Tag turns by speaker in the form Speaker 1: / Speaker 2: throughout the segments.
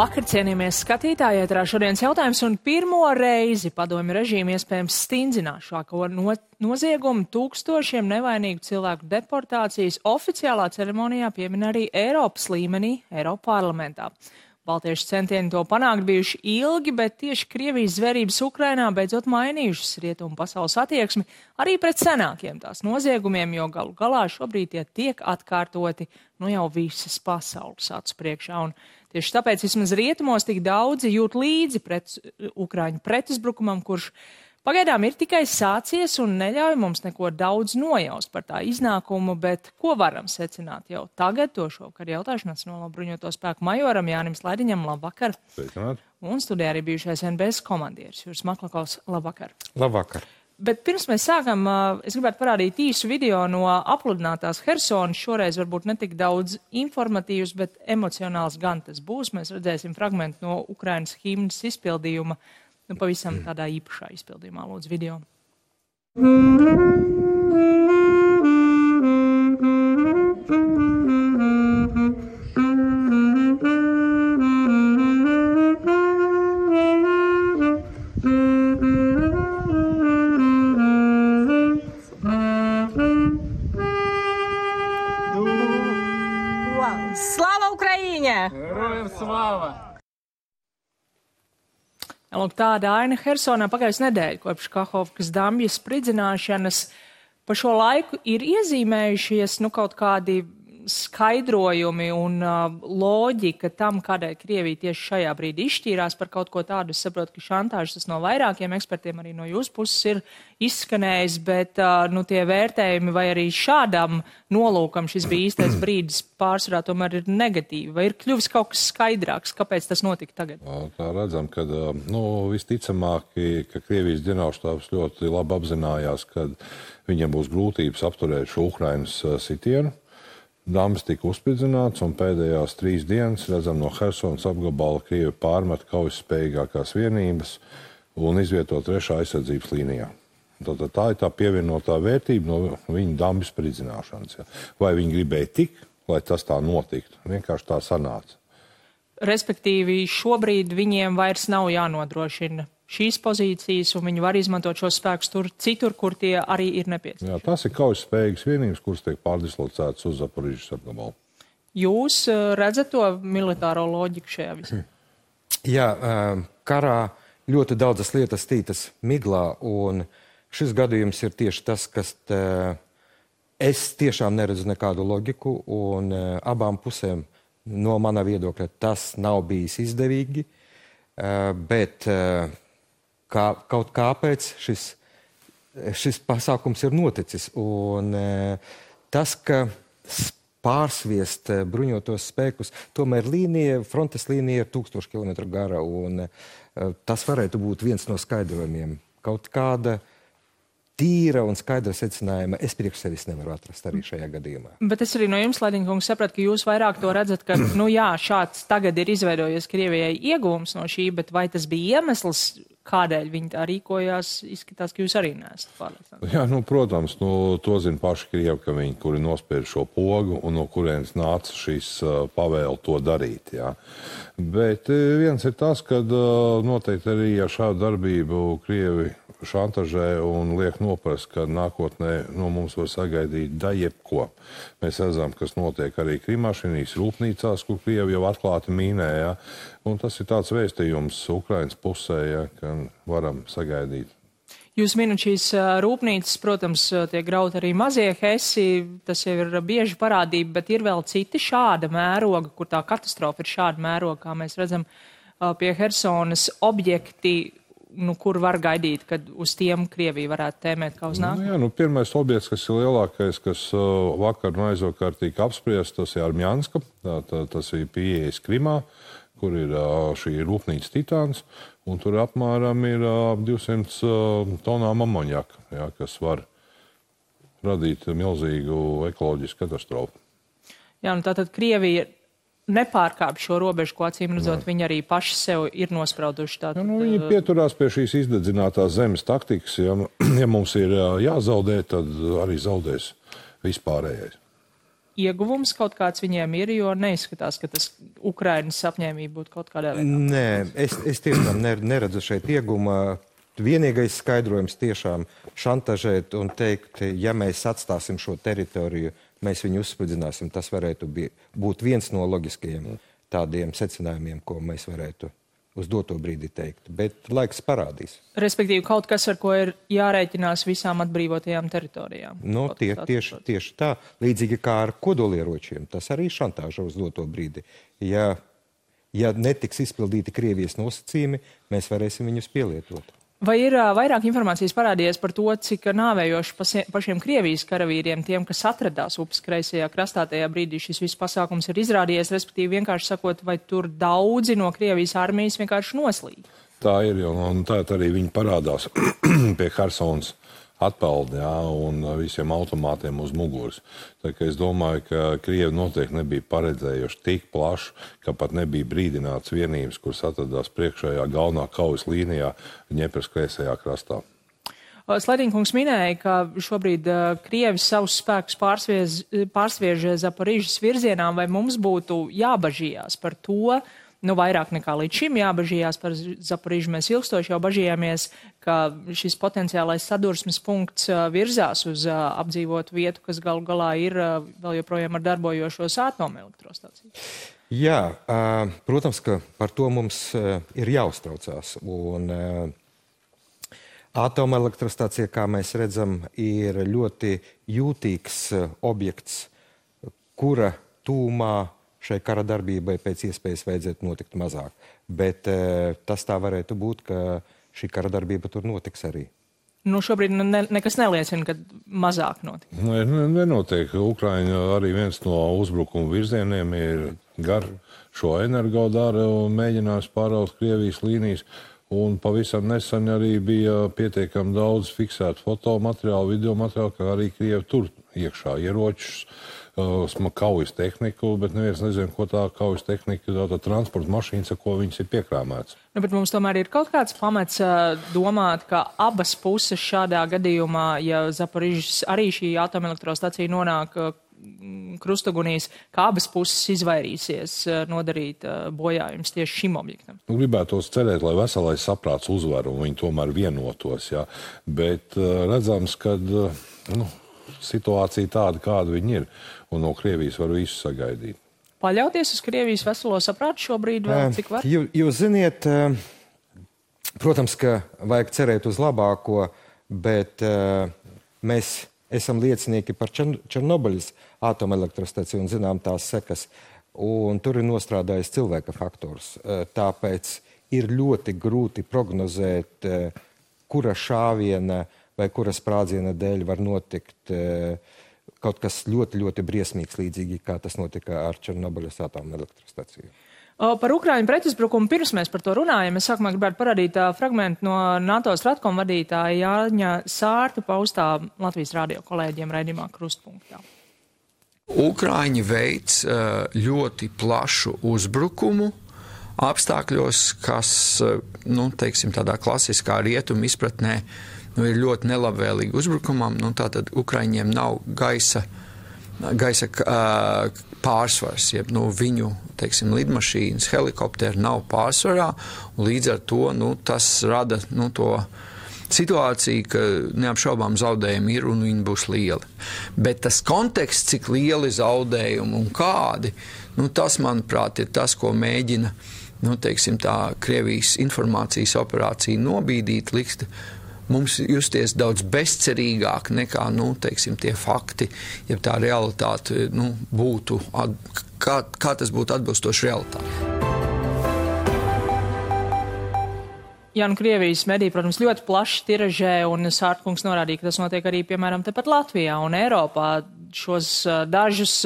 Speaker 1: Labvakar, cienījamies skatītāji, ēterā šodienas jautājums un pirmo reizi padomju režīmu iespējams stingzināšāko noziegumu tūkstošiem nevainīgu cilvēku deportācijas oficiālā ceremonijā piemin arī Eiropas līmenī, Eiropa parlamentā. Baltiešu centieni to panākt bijuši ilgi, bet tieši Krievijas zvērības Ukrainā beidzot mainījušas rietumu pasaules attieksmi arī pret senākiem tās noziegumiem, jo galu galā šobrīd tie tiek atkārtoti jau visas pasaules acu priekšā. Un tieši tāpēc vismaz rietumos tik daudzi jūt līdzi Ukraiņu pretuzbrukumam, kurš pagaidām ir tikai sācies un neļauj mums neko daudz nojaust par tā iznākumu, bet ko varam secināt jau tagad, to šovakar jautāšu Nacionālo bruņoto spēku majoram Jānim Slaidiņam, labvakar.
Speaker 2: Sveicināt.
Speaker 1: Un studijā arī bijušais NBS komandieris Juris Maklakovs, labvakar.
Speaker 2: Labvakar.
Speaker 1: Bet pirms mēs sākam, es gribētu parādīt īsu video no apludinātās Hersonas, šoreiz varbūt ne tik daudz informatīvs, bet emocionāls gan tas būs. Mēs redzēsim fragmentu no Ukrainas himnas izpildījuma, pavisam tādā īpašā izpildījumā, lūdzu, video.
Speaker 3: Slava Ukraiņa!
Speaker 4: Herojem slava!
Speaker 1: Lūk, tāda aina Hersonā pagājusi nedēļa kopš Kahovkas dambja spridzināšanas. Pa šo laiku ir iezīmējušies kaut kādi skaidrojumi un loģika tam, kādēļ Krievija tieši šajā brīdī izšķīrās par kaut ko tādu. Es saprotu, ka šantāžas tas no vairākiem ekspertiem arī no jūsu puses ir izskanējis, bet tie vērtējumi vai arī šādam nolūkam šis bija īstais brīdis pārsvarā tomēr ir negatīvi. Vai ir kļuvis kaut kas skaidrāks, kāpēc tas notika tagad?
Speaker 2: Tā redzam, ka visticamāk, ka Krievijas ģenerālštābs ļoti labi apzinājās, ka viņiem būs grūtības apturēt šo Ukrainas sitienu. Dambis tika uzspridzināts, un pēdējās 3 dienas, redzam, no Hersonas apgabala Krievi pārmet kaujaspējīgākās vienības un izvieto 3. aizsardzības līnijā. Tātad tā ir tā pievienotā vērtība no viņa dambis spridzināšanas. Ja. Vai viņi gribēja tik, lai tas tā notiktu? Vienkārši tā sanāca.
Speaker 1: Respektīvi, šobrīd viņiem vairs nav jānodrošina šīs pozīcijas, un viņi var izmantot šos spēkus citur, kur tie arī ir nepieciešami.
Speaker 2: Jā, tas ir kaujaspējīgas vienības, kuras tiek pārdislocētas uz Zaporižas apgabalu.
Speaker 1: Jūs redzat to militāro loģiku šajā visā?
Speaker 4: Jā, karā ļoti daudzas lietas tītas miglā, un šis gadījums ir tieši tas, kas es tiešām neredzu nekādu loģiku, un abām pusēm no mana viedokļa tas nav bijis izdevīgi, bet kaut kāpēc šis pasākums ir noticis. Un tas, ka pārsviest bruņotos spēkus, tomēr frontes līnija ir 1000 kilometru gara, un tas varētu būt viens no skaidrojumiem. Kaut kāda tīra un skaidra secinājuma es priekš sevis nevaru atrast arī šajā gadījumā.
Speaker 1: Bet es arī no jums, Slaidiņa kungs, sapratu, ka jūs vairāk to redzat, ka, šāds tagad ir izveidojies Krievijai ieguvums no šī, bet vai tas bija iemesls, kādēļ viņi tā rīkojās, izskatās, ka jūs arī neesat pārliecināti?
Speaker 2: Jā, protams, to zina paši Krievi, ka viņi, kuri nospēr šo pogu un no kurienes nāca šīs pavēle to darīt. Jā. Bet viens ir tas, ka noteikti arī ar šādu darbību Krievi šantažē un liek noprast, ka nākotnē mums var sagaidīt jebko. Mēs redzam, kas notiek arī Krimašinīs rūpnīcās, kur Krievi jau atklāti mīnē. Ja? Un tas ir tāds vēstījums Ukrainas pusē, ja, ka varam sagaidīt.
Speaker 1: Jūs minat šīs rūpnīcas, protams, tiek grauti arī mazie hesi, tas jau ir bieži parādība, bet ir vēl citi šāda mēroga, kur tā katastrofa ir šāda mēroga, kā mēs redzam pie Hersonas objekti, kur var gaidīt, kad uz tiem Krievija varētu tēmēt kā uz nākotni?
Speaker 2: Pirmais objekts, kas ir lielākais, kas vakar un aizvakar tika apspriests, tas ir Armjanska, tas ir pieejas Krimā, kur ir šī rūpnīca Titāns, un tur apmēram ir 200 tonām amonjaka, ja, kas var radīt milzīgu ekoloģisku katastrofu.
Speaker 1: Jā, tātad Krievija nepārkāp šo robežu, ko acīm redzot, viņi arī paši sev ir nosprauduši.
Speaker 2: Viņi pieturās pie šīs izdedzinātās zemes taktikas. Ja mums ir jāzaudē, tad arī zaudēs vispārējais.
Speaker 1: ieguvums kaut kāds viņiem ir, jo neizskatās, ka tas Ukrainas apņēmība būtu kaut kādā veidā.
Speaker 4: Nē, es tiešām neredzu šeit ieguma. Vienīgais skaidrojums tiešām šantažēt un teikt, ja mēs atstāsim šo teritoriju, mēs viņu uzspridzināsim, tas varētu būt viens no loģiskajiem tādiem secinājumiem, ko mēs varētu uz doto brīdi teikt. Bet laiks parādīs.
Speaker 1: Respektīvi, kaut kas, ar ko ir jārēķinās visām atbrīvotajām teritorijām.
Speaker 4: No, tieši tā. Līdzīgi kā ar kodolieročiem. Tas arī šantāža uz doto brīdi. Ja netiks izpildīti Krievijas nosacījumi, mēs varēsim viņus pielietot.
Speaker 1: Vai ir vairāk informācijas parādījies par to, cik nāvējoši pašiem Krievijas karavīriem, tiem, kas atradās upes kreisajā krastā tajā brīdī, šis viss pasākums ir izrādījies, respektīvi vienkārši sakot, vai tur daudzi no Krievijas armijas vienkārši noslīd?
Speaker 2: Tā ir, un tā arī viņi parādās pie Hersonas atpeldi, un visiem automātiem uz muguras. Tā kā es domāju, ka Krievi noteikti nebija paredzējuši tik plašu, ka pat nebija brīdināts vienības, kuras atradās priekšējā galvenā kaujas līnijā Ņepras kreisajā krastā.
Speaker 1: Sledīnkungs minēja, ka šobrīd Krievi savus spēkus pārsviež Zaporižas virzienā, vai mums būtu jābažījās par to, vairāk nekā līdz šim jābažījās par Zaporižu. Mēs ilgstoši jau bažījāmies, ka šis potenciālais sadursmes punkts virzās uz apdzīvotu vietu, kas galu galā ir vēl joprojām ar darbojošos atomelektrostaciju.
Speaker 4: Jā, protams, ka par to mums ir jāuztraucās. Un atomelektrostacija, kā mēs redzam, ir ļoti jūtīgs objekts, kura tūmā šai kara darbībai pēc iespējas vajadzētu notikt mazāk. Bet tas tā varētu būt, ka šī kara darbība tur notiks arī.
Speaker 1: Šobrīd nekas neliecina, ka mazāk notiks.
Speaker 2: Nenotiek. Ukraiņa arī viens no uzbrukuma virzieniem ir gar šo energodaru un mēģinājums pāraut Krievijas līnijas. Un pavisam nesen arī bija pietiekami daudz fiksētu fotomateriālu, videomateriālu, kā arī Krievi tur iekšā ieročus, kaujas tehniku, bet neviens nezina, ko tā kaujas tehnika, tā transporta mašīnas, ar ko viņas ir piekrāmētas.
Speaker 1: Bet mums tomēr ir kaut kāds pamats domāt, ka abas puses šādā gadījumā, ja Zaporižas arī šī atomelektrostacija nonāk krustugunīs, kā abas puses izvairīsies nodarīt bojājumus tieši šim objektam.
Speaker 2: Gribētos cerēt, lai veselais saprāts uzvar un viņi tomēr vienotos, jā. Bet redzams, ka situācija tāda, kāda viņi ir, un no Krievijas var visu sagaidīt.
Speaker 1: Paļauties uz Krievijas veselo saprātu šobrīd vēl cik var?
Speaker 4: Jūs ziniet, protams, ka vajag cerēt uz labāko, bet mēs esam liecinieki par Černobiļas atomelektrostaciju un zinām tās sekas, un tur ir nostrādājis cilvēka faktors. Tāpēc ir ļoti grūti prognozēt, kura šāviena vai kura sprādziena dēļ var notikt kaut kas ļoti, ļoti briesmīgs, līdzīgi kā tas notika ar Černobiļas atomelektrostaciju.
Speaker 1: Par Ukraiņu pretuzbrukumu pirms mēs par to runājam. Es sākumā gribētu parādīt fragmentu no NATO Stratkom vadītāja Jāņa Sārta paustā Latvijas radio kolēģiem raidījumā Krustpunktā.
Speaker 3: Ukraiņi veic ļoti plašu uzbrukumu apstākļos, kas, teiksim, tādā klasiskā rietumu izpratnē ir ļoti nelabvēlīgi uzbrukumam. Tātad Ukraiņiem nav gaisa pārsvars, jeb viņu, teiksim, lidmašīnas, helikopteri nav pārsvarā, un līdz ar to tas rada to situāciju, ka neapšaubām zaudējumi ir un viņi būs lieli. Bet tas konteksts, cik lieli zaudējumi un kādi, tas, manuprāt, ir tas, ko mēģina, teiksim, tā Krievijas informācijas operācija nobīdīt, likt mums justies daudz bezcerīgāk nekā, teiksim, tie fakti, ja tā realitāte, būtu, kā tas būtu atbilstoši realitāti.
Speaker 1: Jā, Krievijas mediji, protams, ļoti plaši tiražē, un Sārtkungs norādīja, ka tas notiek arī, piemēram, tepat Latvijā un Eiropā. Šos dažus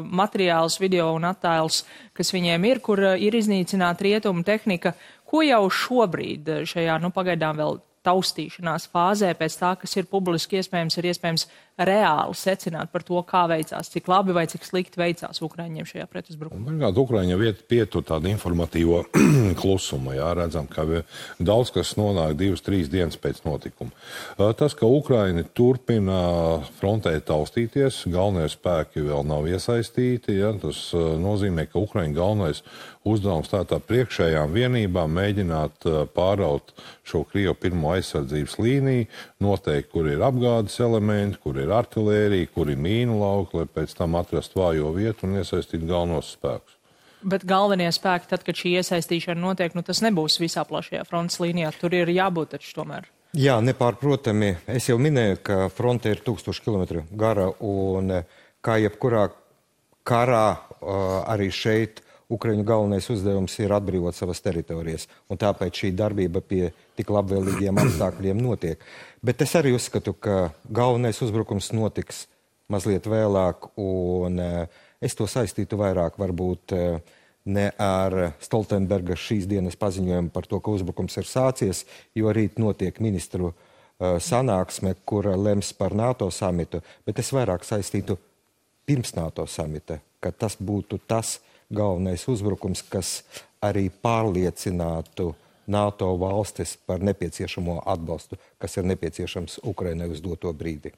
Speaker 1: materiālus, video un attēlus, kas viņiem ir, kur ir iznīcināta rietumu tehnika, ko jau šobrīd šajā, pagaidām vēl taustīšanās fāzē, pēc tā, kas ir publiski iespējams, ir iespējams reāli secināt par to, kā veicās, cik labi vai cik slikti veicās Ukraiņiem šajā pretuzbrukumā?
Speaker 2: Pirmkārt, Ukraiņa pietur tādu informatīvo klusumu. Jā, redzam, ka daudz kas nonāk 2-3 dienas pēc notikuma. Tas, ka Ukraiņi turpina frontē taustīties, galvenie spēki vēl nav iesaistīti, jā, tas nozīmē, ka Ukraiņu galvenais uzdevums tā priekšējām vienībām mēģināt pāraut šo Krievu pirmo aizsardzības līniju, noteikt, kur ir apgādes elementi, kur ir artilērija, kur ir mīnu lauki, lai pēc tam atrast vājo vietu un iesaistīt galvenos spēkus.
Speaker 1: Bet galvenie spēki, tad, kad šī iesaistīšana notiek, tas nebūs visā plašajā frontes līnijā. Tur ir jābūt taču tomēr.
Speaker 4: Jā, nepārprotami. Es jau minēju, ka fronte ir 1000 km gara un kā jebkurā karā arī šeit Ukraiņu galvenais uzdevums ir atbrīvot savas teritorijas, un tāpēc šī darbība pie tik labvēlīgiem apstākļiem notiek. Bet es arī uzskatu, ka galvenais uzbrukums notiks mazliet vēlāk, un es to saistītu vairāk varbūt ne ar Stoltenberga šīs dienas paziņojumu par to, ka uzbrukums ir sācies, jo rīt notiek ministru sanāksme, kura lems par NATO samitu, bet es vairāk saistītu pirms NATO samita, ka tas būtu tas galvenais uzbrukums, kas arī pārliecinātu NATO valstis par nepieciešamo atbalstu, kas ir nepieciešams Ukrainai uz doto brīdi.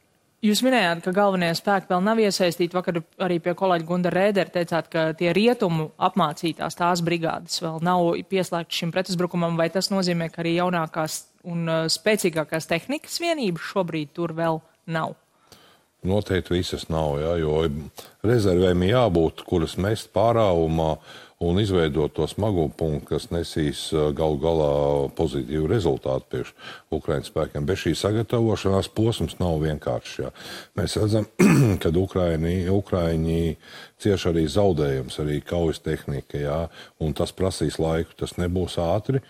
Speaker 1: Jūs minējāt, ka galvenie spēki vēl nav iesaistīti. Vakar arī pie kolēģa Gunda Rēdera teicāt, ka tie rietumu apmācītās tās brigādes vēl nav pieslēgtas šim pretuzbrukumam, vai tas nozīmē, ka arī jaunākās un spēcīgākās tehnikas vienības šobrīd tur vēl nav?
Speaker 2: Noteikti visas nav, jā, jo rezervēm jābūt, kuras mest pārāvumā un izveidot to smago punktu, kas nesīs galu galā pozitīvu rezultātu priekš Ukraiņas spēkiem. Bez šī sagatavošanās posms nav vienkāršs. Jā. Mēs redzam, ka Ukraiņi cieš arī zaudējums, arī kaujas tehnika, jā, un tas prasīs laiku, tas nebūs ātri.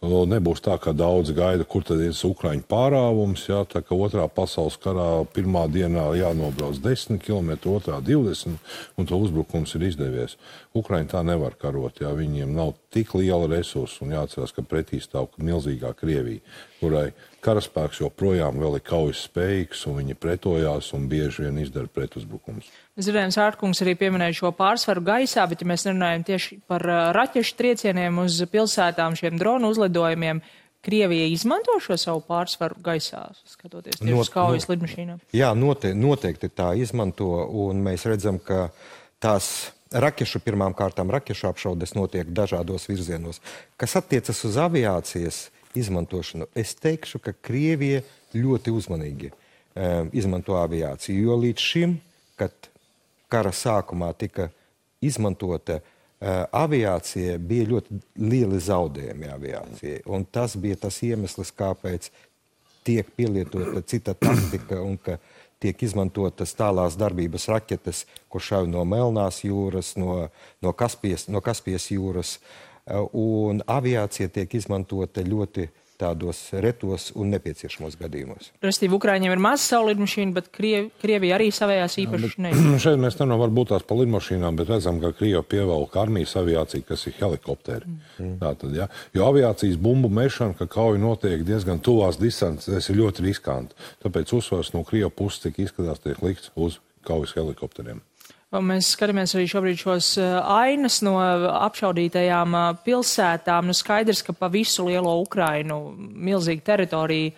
Speaker 2: Nebūs tā, ka daudz gaida, kur tad ir Ukraiņu pārāvums, jā, tā ka otrā pasaules karā pirmā dienā jānobrauc 10 km, otrā 20, un to uzbrukums ir izdevies. Ukraiņi tā nevar karot, jā, viņiem nav tik liela resursa, un jāatcerās, ka pretī stāv milzīgā Krievija, kurai karaspēks joprojām vēl ir kaujas spējīgs, un viņi pretojās un bieži vien izdara pretuzbrukumus.
Speaker 1: Zirēns Ārtkungs arī pieminēja šo pārsvaru gaisā, bet ja mēs runājam tieši par raķešu triecieniem uz pilsētām, šiem dronu uzlidojumiem, Krievija izmanto šo savu pārsvaru gaisā, skatoties tieši uz kaujas lidmašīnām? Jā,
Speaker 4: noteikti tā izmanto, un mēs redzam, ka tās pirmām kārtām raķešu apšaudes notiek dažādos virzienos. Kas attiecas uz aviācijas izmantošanu, es teikšu, ka Krievija ļoti uzmanīgi izmanto aviāciju, jo līdz šim, kad kara sākumā tika izmantota aviācija, bija ļoti lieli zaudējumi aviācijai. Un tas bija tas iemesls, kāpēc tiek pielietota cita taktika un ka tiek izmantotas tālās darbības raķetes, kur šauj no Melnās jūras, no Kaspijas jūras. Un aviācija tiek izmantota ļoti tādos retos un nepieciešamos gadījumos.
Speaker 1: Restīvi, Ukraiņiem ir maz savu lidmašīnu, bet Krievija arī savējās īpaši neizmanto.
Speaker 2: Šeit mēs nevaram varbūt tās par lidmašīnām, bet redzam, ka Krievija pievelk armijas aviāciju, kas ir helikopteri. Tātad, ja? Jo aviācijas bumbu mešana, ka kauja notiek diezgan tuvās distances, ir ļoti riskanti. Tāpēc uzsvars no Krievija puses, cik izskatās, tiek likts uz kaujas helikopteriem.
Speaker 1: Mēs skatāmies arī šobrīd šos ainas no apšaudītajām pilsētām. Skaidrs, ka pa visu lielo Ukrainu milzīga teritorija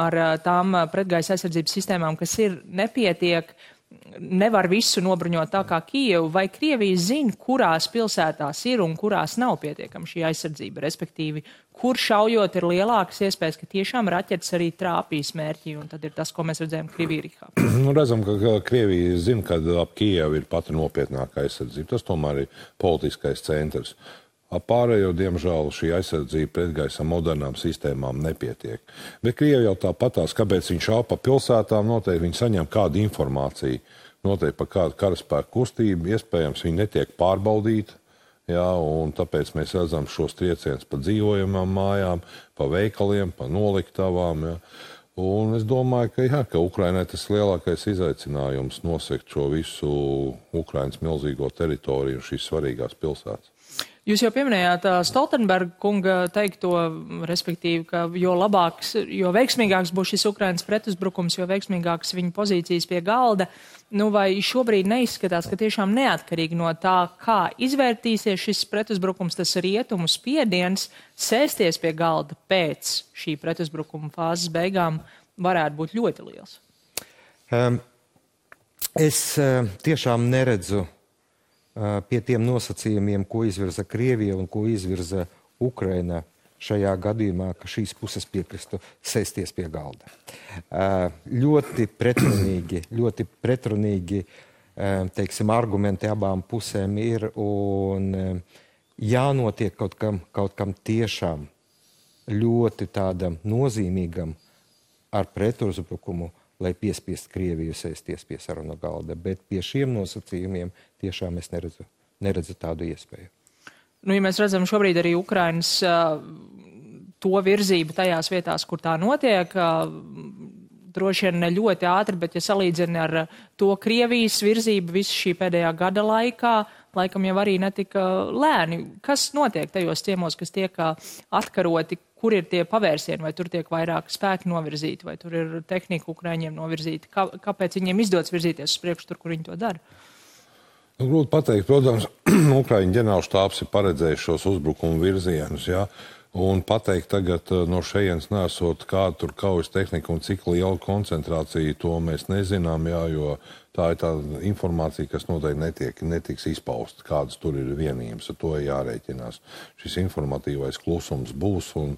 Speaker 1: ar tām pretgaisa aizsardzības sistēmām, kas ir nepietiek, nevar visu nobruņot tā kā Kijevu. Vai Krievija zina, kurās pilsētās ir un kurās nav pietiekama šī aizsardzība, respektīvi, kur šaujot ir lielākas iespējas, ka tiešām raķetes arī trāpīs mērķi, un tad ir tas, ko mēs redzējām Krievijā.
Speaker 2: Redzam, ka Krievija zina, ka ap Kijevu ir pati nopietnākā aizsardzība. Tas tomēr ir politiskais centrs. Pārējo, diemžēl, šī aizsardzība pretgaisa modernām sistēmām nepietiek. Bet Krievija jau tāpatās, kāpēc viņš šauj pa pilsētām, noteikti viņi saņem kādu informāciju, noteikti par kādu karaspēku kustību, iespējams viņi netiek pārbaudīti, jā, un tāpēc mēs redzam šos triecienus pa dzīvojamām mājām, pa veikaliem, pa noliktavām, jā. Un es domāju, ka Ukrainai tas lielākais izaicinājums nosegt šo visu Ukrainas milzīgo teritoriju un šīs svarīgās pilsētas.
Speaker 1: Jūs jau pieminējāt Stoltenberga kunga teikto, respektīvi, ka jo veiksmīgāks būs šis Ukrainas pretuzbrukums, jo veiksmīgāks viņa pozīcijas pie galda. Nu, vai šobrīd neizskatās, ka tiešām neatkarīgi no tā, kā izvērtīsies šis pretuzbrukums, tas rietumu spiediens, sēsties pie galda pēc šī pretuzbrukuma fāzes beigām varētu būt ļoti liels?
Speaker 4: Es tiešām neredzu pie tiem nosacījumiem, ko izvirza Krievija un ko izvirza Ukraina šajā gadījumā, ka šīs puses piekristu sēsties pie galda. Ļoti pretrunīgi, teiksim, argumenti abām pusēm ir un jānotiek kaut kam tiešām ļoti tādam nozīmīgam ar pretuzbrukumu, lai piespiest Krieviju sēsties pie sarunu galda, bet pie šiem nosacījumiem tiešām es neredzu tādu iespēju.
Speaker 1: Nu, ja mēs redzam šobrīd arī Ukrainas to virzību tajās vietās, kur tā notiek, droši vien ne ļoti ātri, bet ja salīdzina ar to Krievijas virzību visu šī pēdējā gada laikā, laikam jau arī netika lēni. Kas notiek tajos ciemos, kas tiek atkaroti? Kur ir tie pavērsieni, vai tur tiek vairāk spēki novirzīti, vai tur ir tehnika Ukraiņiem novirzīta? Kāpēc viņiem izdodas virzīties uz priekšu tur, kur viņi to dara?
Speaker 2: Nu, grūti pateikt, protams, Ukraiņu ģenerālštābs ir paredzējis šos uzbrukumu virzienus, jā, un pateikt tagad no šejienes nesot kādu tur kaujas tehniku un cik liela koncentrācija, to mēs nezinām, jā, jo tā ir tā informācija, kas noteikti netiks izpausta, kādas tur ir vienības, ar to jārēķinās. Šis informatīvais klusums būs, un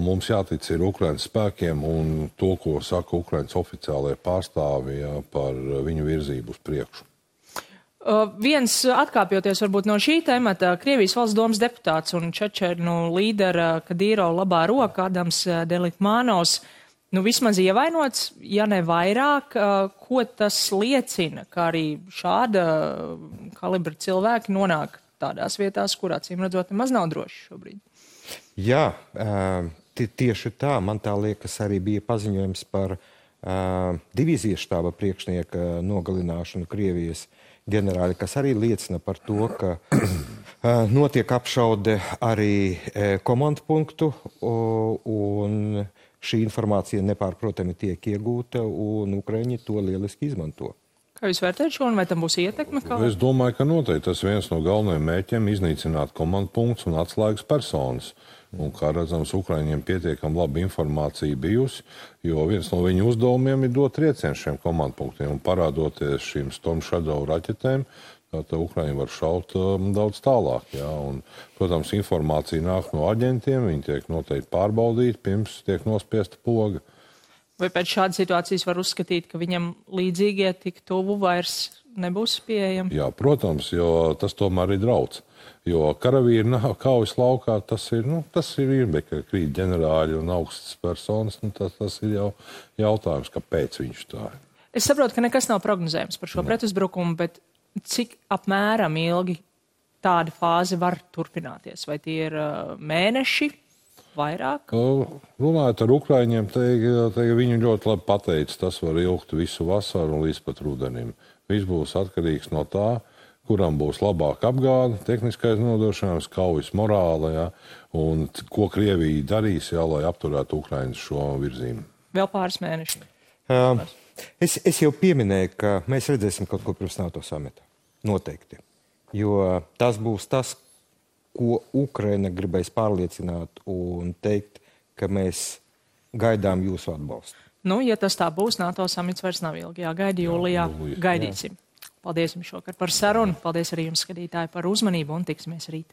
Speaker 2: mums jātic ir Ukrainas spēkiem un to, ko saka Ukrainas oficiālajie pārstāvi, jā, par viņu virzību uz priekšu.
Speaker 1: Viens atkāpjoties varbūt no šī temata, Krievijas valsts domas deputāts un Čečernu līdera Kadīro labā roka Adams Delikmanovs, nu vismaz ievainots, ja ne vairāk, ko tas liecina, ka arī šāda kalibra cilvēki nonāk tādās vietās, kur acīm redzot nemaz nav droši šobrīd.
Speaker 4: Jā, tieši tā, man tā liekas arī bija paziņojums par divīzijas štāba priekšnieka nogalināšanu Krievijas ģenerāli, kas arī liecina par to, ka notiek apšaude arī komandu punktu un šī informācija nepārprotami tiek iegūta un Ukraiņi to lieliski izmanto.
Speaker 1: Kā jūs vērtējat šo un vai tam būs ietekme?
Speaker 2: Es domāju, ka noteikti tas viens no galvenajiem mērķiem iznīcināt komandu punktus un atslēgas personas. Un, kā redzams, Ukraiņiem pietiekam laba informācija bijusi, jo viens no viņu uzdevumiem ir dot triecienu šiem komandu punktiem un parādoties šīm Storm Shadow raķetēm, tad Ukraiņi var šaut daudz tālāk. Jā. Un, protams, informācija nāk no aģentiem, viņi tiek noteikti pārbaudīti, pirms tiek nospiesta poga.
Speaker 1: Vai pēc šādas situācijas var uzskatīt, ka viņam līdzīgie tik tuvu vairs nebūs pieejami? Jā,
Speaker 2: protams, jo tas tomēr ir drauds. Jo karavīri nav kaujas laukā, tas ir ka krīt ģenerāļi un augstas personas, tas ir jau jautājums, kāpēc viņš tā ir.
Speaker 1: Es saprotu, ka nekas nav prognozējams par šo pretuzbrukumu, bet cik apmēram ilgi tāda fāze var turpināties? Vai tie ir mēneši, vairāk?
Speaker 2: Runājot ar Ukraiņiem, viņi ļoti labi pateica, tas var ilgt visu vasaru un līdz pat rudenim. Viss būs atkarīgs no tā, kuram būs labāka apgāde, tehniskais nodošanās, kaujas morāla, ja, un ko Krievija darīs, ja, lai apturētu Ukrainas šo virzību.
Speaker 1: Vēl pāris mēneši.
Speaker 4: Es jau pieminēju, ka mēs redzēsim kaut ko pirms NATO samita. Noteikti. Jo tas būs tas, ko Ukraina gribēs pārliecināt un teikt, ka mēs gaidām jūsu atbalstu.
Speaker 1: Nu, ja tas tā būs, NATO samits vairs nav ilgi jāgaida jūlijā. Gaidīsim. Paldies jums šokar par sarunu. Paldies arī jums, skatītāji, par uzmanību un tiksimies rīt.